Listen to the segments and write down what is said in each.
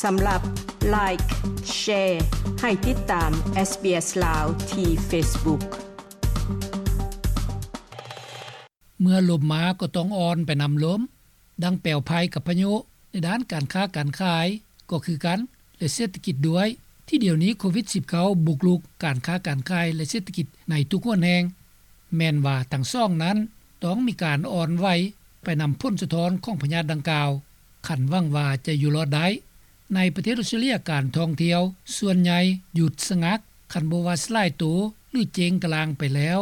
ສຳລັບ Like, Share ໃຫ້ຕິດຕາມ SBS ລາວ ທີ່ Facebook. ເມື່ອລົມມາກໍຕ້ອງອ່ອນໄປນຳລົມ. ດັ່ງແປວໄພກັບພາຍຸໃນດ້ານການຄ້າການຂາຍກໍຄືກັນ ແລະ ເສດຖະກິດດ້ວຍ ທີ່ດຽວນີ້ໂຄວິດສິບເກົ້າບຸກລຸກການຄ້າການຂາຍ ແລະ ເສດຖະກິດໃນທຸກຫົນແຫ່ງ. ແມ່ນວ່າທັງສອງນັ້ນຕ້ອງມີການອ່ອນໄຫວໄປນຳຜົນສະທ້ອນຂອງພະຍາດດັ່ງກ່າວ ຄັນຫວັງວ່າຈະຢູ່ລອດໄດ້. ໃນປະເທດອອສເຕຣເລຍ ການທ່ອງທ່ຽວສ່ວນໃຫຍ່ຢຸດສະງັກ ຄັນບໍ່ວ່າສະຫຼາຍໂຕ ຫຼື ເຈັງກະລ່າງໄປແລ້ວ.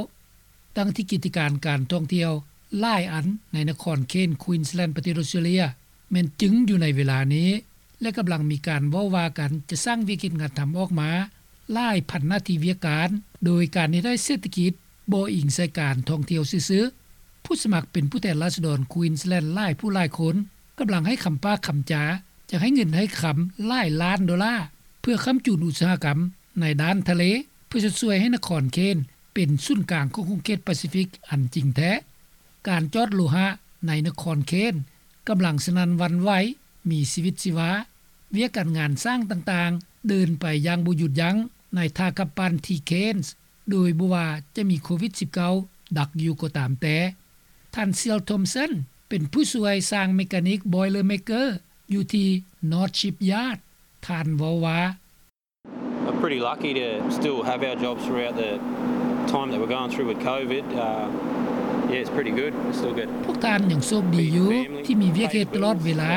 ດັ່ງທີ່ກິດຈະການການທ່ອງທ່ຽວຫຼາຍອັນໃນນະຄອນເຄນສ໌ ຄວີນສ໌ແລນ ປະເທດອອສເຕຣເລຍ ແມ່ນຈຶ່ງຢູ່ໃນເວລານີ້ ແລະ ກຳລັງມີການເວົ້າວ່າກັນຈະສ້າງວຽກເຮັດງານທຳອອກມາຫຼາຍພັນໜ້າທີ່ວຽກການ ໂດຍການເຮັດໃຫ້ເສດຖະກິດບໍ່ອີງໃສ່ການທ່ອງທ່ຽວຊື່ໆ. ຜູ້ສະໝັກເປັນຜູ້ແທນລາຊະດອນຄວີນສ໌ແລນຫຼາຍຜູ້ຫຼາຍຄົນ ກຳລັງໃຫ້ຄຳປາກຄຳຈາ ຈະໃຫ້ເງິນໃຫ້ຄຳຫຼາຍລ້ານໂດລາ ເພື່ອຄ້ຳຈູນອຸດສາຫະກຳໃນດ້ານທະເລ ເພື່ອຈະຊ່ວຍໃຫ້ນະຄອນເຄນສ໌ເປັນສູນກາງຂອງຂົງເຂດປາຊີຟິກອັນຈິງແທ້. ການຈອດໂລຫະໃນນະຄອນເຄນສ໌ກຳລັງສະໜັ່ນຫວັ່ນໄຫວ, ມີຊີວິດຊີວາ, ວຽກການງານສ້າງຕ່າງໆເດີນໄປຢ່າງບໍ່ຢຸດຢັ້ງໃນທ່າກັບປັ່ນທີ່ເຄນສ໌ ໂດຍບໍ່ວ່າຈະມີໂຄວິດສິບເກົ້າດັກຢູ່ກໍຕາມແຕ່. ທ່ານ Seal Thompson ເປັນຜູ້ຊ່ວຍຊ່າງເມການິກ Boilermaker ຢູ່ທີ່ North Shipyard. ທ່ານເວົ້າວ່າ We're pretty lucky to still have our jobs throughout the time that we're going through with COVID. Uh, yeah, it's pretty good. We still get ພວກທ່ານຍັງໂຊກດີຢູ່ທີ່ມີວຽກເຮັດຕະຫຼອດເວລາ.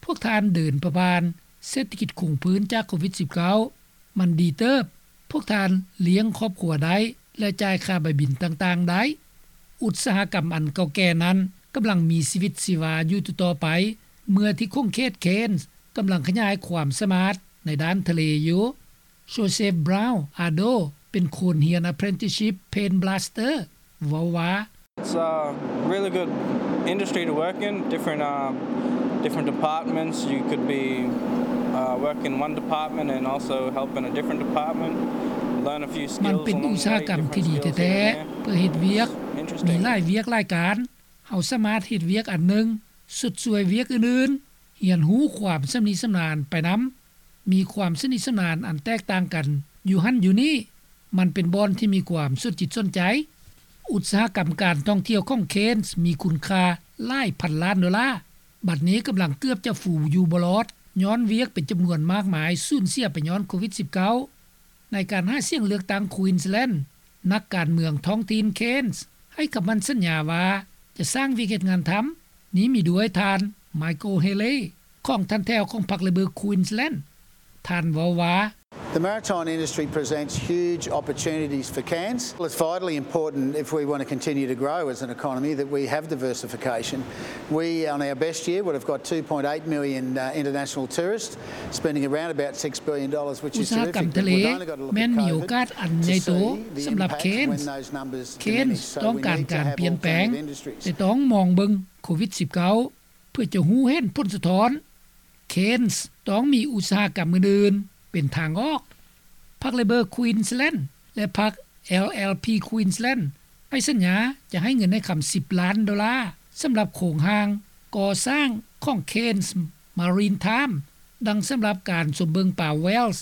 ພວກທ່ານເດີນປະຜ່ານເສດຖະກິດຄົງພື້ນຈາກໂຄວິດສິບເກົ້າ ມັນດີເຕີບ. ພວກທ່ານລ້ຽງຄອບຄົວໄດ້ ແລະ ຈ່າຍຄ່າໃບບິນຕ່າງໆໄດ້. ອຸດສາຫະກຳອັນເກົ່າແກ່ນັ້ນກຳລັງມີຊີວິດຊີວາຢູ່ຕໍ່ໆໄປ ເມື່ອທີ່ຂົງເຂດເຄນສ໌ກຳລັງຂະຫຍາຍຄວາມສາມາດໃນດ້ານທະເລຢູ່. Joseph Brown Ado ເປັນຄົນຮຽນ Apprenticeship Paint Blaster ເວົ້າວ່າ It's a really good industry to work in. Different, um, different departments. You could be, uh, work in one department and also help in a different department. Learn a few skills along the way. ມັນເປັນອຸດສາຫະກຳທີ່ດີແທ້ໆ ເພື່ອເຮັດວຽກ. ມີຫຼາຍວຽກຫຼາຍການ. ເຮົາສາມາດເຮັດວຽກອັນໜຶ່ງ ຊົດຊ່ວຍວຽກອື່ນໆ, ຮຽນຮູ້ຄວາມຊຳນິຊຳນານໄປນຳ. ມີຄວາມຊຳນິຊຳນານອັນແຕກຕ່າງກັນຢູ່ຫັ້ນຢູ່ນີ້. ມັນເປັນບ່ອນທີ່ມີຄວາມສົນຈິດສົນໃຈ. ອຸດສາຫະກຳການທ່ອງທ່ຽວຂອງເຄນສ໌ມີຄຸນຄ່າຫຼາຍພັນລ້ານໂດລາ, ບັດນີ້ກຳລັງເກືອບຈະຟູຢູ່ບໍ່ລອດ ຍ້ອນວຽກເປັນຈຳນວນມາກມາຍສູນເສຍໄປຍ້ອນໂຄວິດສິບເກົ້າ. ໃນການຫາສຽງເລືອກຕັ້ງຄວີນສ໌ແລນ ນັກການເມືອງທ້ອງຖິ່ນເຄນສ໌ໃຫ້ຄຳໝັ້ນສັນຍາວ່າຈະສ້າງວຽກເຮັດງານທຳ. ນີ້ມີດ້ວຍທ່ານ Michael Haley ຂອງຖັນແຖວຂອງພັກ Labor Queensland. ທ່ານເວົ້າວ່າ The maritime industry presents huge opportunities for Cairns. It's vitally important if we want to continue to grow as an economy that we have diversification. We, on our best year, would have got two point eight million, uh, international tourists, spending around about six billion dollars, which is terrific, but we've only got to look at COVID to see the impact when those numbers diminish. ອຸດສາຫະກຳທະເລແມ່ນມີໂອກາດອັນໃຫຍ່ໂຕສຳລັບເຄນສ໌. ເຄນສ໌ຕ້ອງການການປ່ຽນແປງ ແຕ່ຕ້ອງມອງເບິ່ງໂຄວິດສິບເກົ້າ ເພື່ອຈະຮູ້ເຫັນຜົນສະທ້ອນ. ເຄນສ໌ຕ້ອງມີອຸດສາຫະກຳອື່ນໆເປັນທາງອອກ. ພັກ Labor Queensland ແລະ ພັກ LLP Queensland ໃຫ້ສັນຍາຈະໃຫ້ເງິນໃຫ້ຄຳສິບລ້ານໂດລາ ສຳລັບໂຄງຮ່າງກໍ່ສ້າງຂອງ Cairns Maritime ດັ່ງສຳລັບການຊົມເບິ່ງປາ whales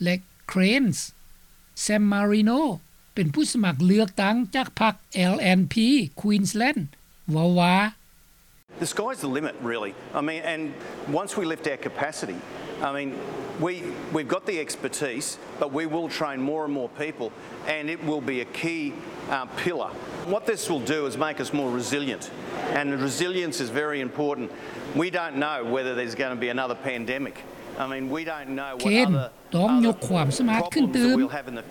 ແລະ cranes. Sam Marino ເປັນຜູ້ສະໝັກເລືອກຕັ້ງຈາກພັກ LNP Queensland ເວົ້າວ່າ The sky's the limit, really. I mean, and once we lift our capacity, I mean, we, we've got the expertise, but we will train more and more people, and it will be a key, uh, pillar. What this will do is make us more resilient, and resilience is very important. We don't know whether there's gonna be another pandemic. I mean, we don't know what other ຕ້ອງຍົກຄວາມສາມາດຂຶ້ນຕື່ມ.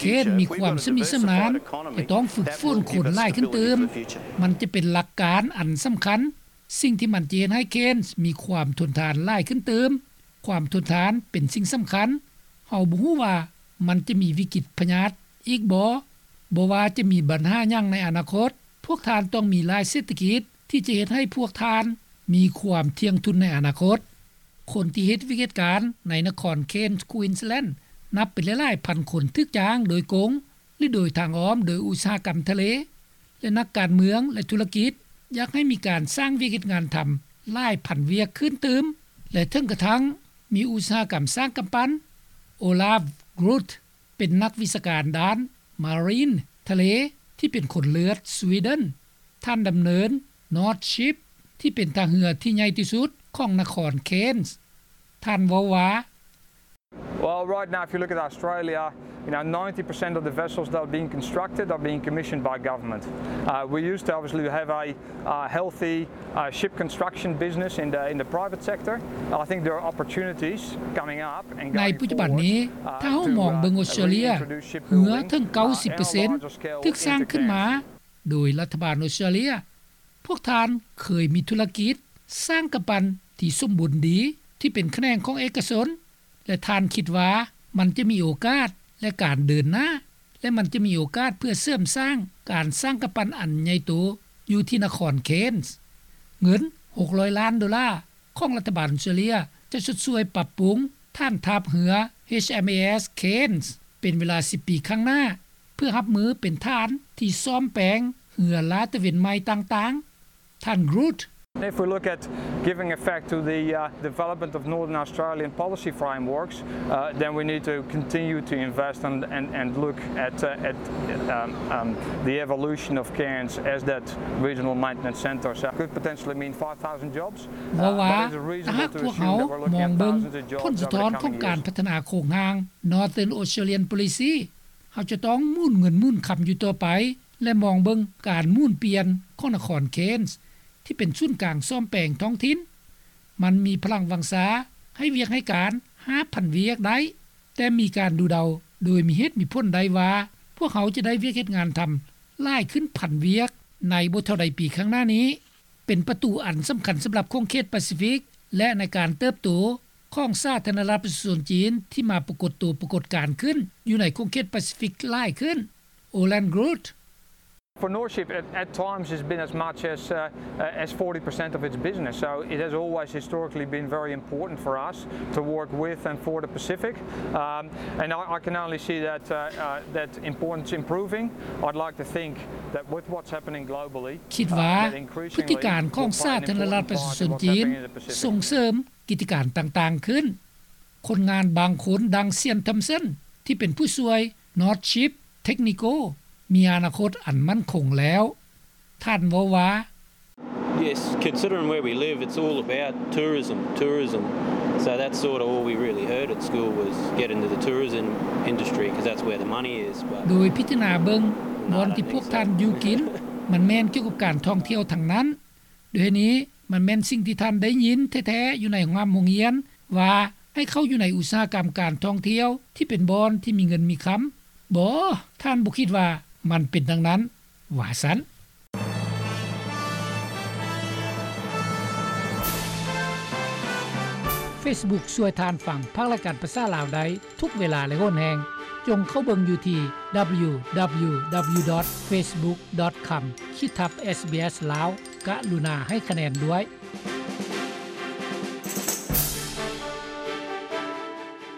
ເຄນສ໌ມີຄວາມຊຳນິຊຳນານ ແຕ່ຕ້ອງຝຶກຝົນຄົນຫຼາຍຂຶ້ນຕື່ມ. ມັນຈະເປັນຫຼັກການອັນສຳຄັນ. ສິ່ງທີ່ມັນຈະເຮັດໃຫ້ເຄນສ໌ມີຄວາມທົນທານຫຼາຍຂຶ້ນຕື່ມ. ຄວາມທົນທານເປັນສິ່ງສຳຄັນ. ເຮົາບໍ່ຮູ້ວ່າມັນຈະມີວິກິດພະຍາດອີກບໍ່? ບໍ່ວ່າຈະມີບັນຫາຫຍັງໃນອະນາຄົດ, ພວກທ່ານຕ້ອງມີຫຼາຍເສດຖະກິດທີ່ຈະເຮັດໃຫ້ພວກທ່ານມີຄວາມທ່ຽງທຸນໃນອະນາຄົດ. ຄົນທີ່ເຮັດວຽກເຮັດການໃນນະຄອນເຄນສ໌ ຄວີນສ໌ແລນ ນັບເປັນຫຼາຍໆພັນຄົນຖືກຈ້າງໂດຍກົງ ຫຼື ໂດຍທາງອ້ອມໂດຍອຸດສາຫະກຳທະເລ ແລະ ນັກການເມືອງ ແລະ ທຸລະກິດ ຢາກໃຫ້ມີການສ້າງວຽກເຮັດງານທຳຫຼາຍພັນວຽກຂຶ້ນຕື່ມ ແລະ ເຖິງກະທັ່ງ ມີອຸດສາຫະກຳສ້າງກຳປັ່ນ. ໂອລາຟ ກຣູດ ເປັນນັກວິຊາການດ້ານ Marine ທະເລ ທີ່ເປັນຄົນເລືອດສະວີເດັນ. ທ່ານດຳເນີນ North Ship ທີ່ເປັນທ່າເຮືອທີ່ໃຫຍ່ທີ່ສຸດຂອງນະຄອນ Cairns. ທ່ານເວົ້າວ່າ Well, right now, if you look at Australia, you know, ninety percent of the vessels that are being constructed are being commissioned by government. Uh, we used to obviously have a, uh, healthy, uh, ship construction business in the, in the private sector. I think there are opportunities coming up and ໃນ going ປັດຈຸບັນນີ້ forward, uh, ຖ້າເຮົາມອງເບິ່ງ to, uh, ອົດສະຕຣາເລຍ reintroduce ເຮືອເຖິງ shipbuilding, ເກົ້າສິບເປີເຊັນ uh, and a larger scale ຖືກສ້າງຂຶ້ນມາ into Cairns. ໂດຍລັດຖະບານອົດສະຕຣາເລຍ. ພວກທ່ານເຄີຍມີທຸລະກິດສ້າງກຳປັ່ນທີ່ສົມບູນດີ ທີ່ເປັນຂະແໜງຂອງເອກະຊົນ ແລະ ທ່ານຄິດວ່າມັນຈະມີໂອກາດ ແລະ ການເດີນໜ້າ ແລະ ມັນຈະມີໂອກາດເພື່ອເສີມສ້າງການສ້າງກຳປັ່ນອັນໃຫຍ່ໂຕຢູ່ທີ່ນະຄອນ Cairns. ເງິນ ຫົກຮ້ອຍລ້ານໂດລາ ຂອງລັດຖະບານອົດສະຕຣາເລຍ ຈະຊົດຊ່ວຍປັບປຸງຖານທັບເຮືອ HMAS Cairns ເປັນເວລາສິບປີຂ້າງໜ້າ ເພື່ອຮັບມືເປັນຖານທີ່ສ້ອມແປງເຮືອລາດຕະເວນໃໝ່ຕ່າງໆ. ທ່ານ Groot. If we look at giving effect to the, uh, development of Northern Australian policy frameworks, uh, then we need to continue to invest and, and, and look at, uh, at, um, um, the evolution of Cairns as that regional maintenance centre. So it could potentially mean five thousand jobs. ເວົ້າວ່າ ຖ້າຫາກພວກເຮົາມອງເບິ່ງຜົນສະທ້ອນຂອງການພັດທະນາໂຄງຮ່າງ Northern Australian Policy, ເຮົາຈະຕ້ອງໝູນເງິນໝູນຄຳຢູ່ຕໍ່ໄປ ແລະ ມອງເບິ່ງການໝູນປ່ຽນຂອງນະຄອນ Cairns ທີ່ເປັນສູນກາງສ້ອມແປງທ້ອງຖິ່ນ. ມັນມີພະລັງວັງຊາໃຫ້ວຽກໃຫ້ການ ຫ້າພັນ ວຽກໄດ້, ແຕ່ມີການດູເດົາໂດຍມີເຫດມີຜົນໄດ້ວ່າ ພວກເຮົາຈະໄດ້ວຽກເຮັດງານທຳຫຼາຍຂຶ້ນພັນວຽກໃນບໍ່ເທົ່າໃດປີຂ້າງໜ້ານີ້. ເປັນປະຕູອັນສຳຄັນສຳລັບຂົງເຂດປາຊີຟິກ ແລະ ໃນການເຕີບໂຕຂອງສາທາລະນະລັດປະຊາຊົນຈີນ ທີ່ມາປາກົດໂຕປາກົດການຂຶ້ນຢູ່ໃນຂົງເຂດປາຊີຟິກຫຼາຍຂຶ້ນ. Olan Groot. For North Ship, at, at times it's been as much as, uh, uh, as forty percent of its business. So it has always historically been very important for us to work with and for the Pacific. Um, and I, I can only see that, uh, uh, that importance improving. I'd like to think that with what's happening globally, ຄິດວ່າ uh, that increasingly ພຶດຕິການຂອງສາທາລະນະລັດປະຊາຊົນຈີນ will play an important part in what's happening in the Pacific. ສົ່ງເສີມ ກິດຈະການຕ່າງໆຂຶ້ນ. ຄົນງານບາງຄົນ ດັ່ງ Sian Thompson ທີ່ເປັນຜູ້ຊ່ວຍ North Ship Technical ມີອະນາຄົດອັນໝັ້ນຄົງແລ້ວ. ທ່ານເວົ້າວ່າ Yes, considering where we live, it's all about tourism, tourism. So that's sort of all we really heard at school was get into the tourism industry, 'cause that's where the money is. But ໂດຍພິຈາລະນາເບິ່ງ ບ່ອນທີ່ພວກທ່ານຢູ່ກິນ ມັນແມ່ນກ່ຽວກັບການທ່ອງທ່ຽວທັງນັ້ນ. ດ້ວຍນີ້ ມັນແມ່ນສິ່ງທີ່ທ່ານໄດ້ຍິນແທ້ໆຢູ່ໃນໂຮງຮ່ຳໂຮງຮຽນ ວ່າໃຫ້ເຂົ້າຢູ່ໃນອຸດສາຫະກຳການທ່ອງທ່ຽວທີ່ເປັນບ່ອນທີ່ມີເງິນມີຄຳ. ບໍ່, ທ່ານບໍ່ຄິດວ່າມັນເປັນດັ່ງນັ້ນ, ວ່າຊັ້ນ. Facebook ຊ່ວຍທ່ານຟັງພາກລາຍການພາສາລາວໄດ້ທຸກເວລາ ແລະ ຫົນແຮງ. ຈົ່ງເຂົ້າເບິ່ງຢູ່ທີ່ www.facebook.com/sbslao. ກະລຸນາໃຫ້ຄະແນນດ້ວຍ.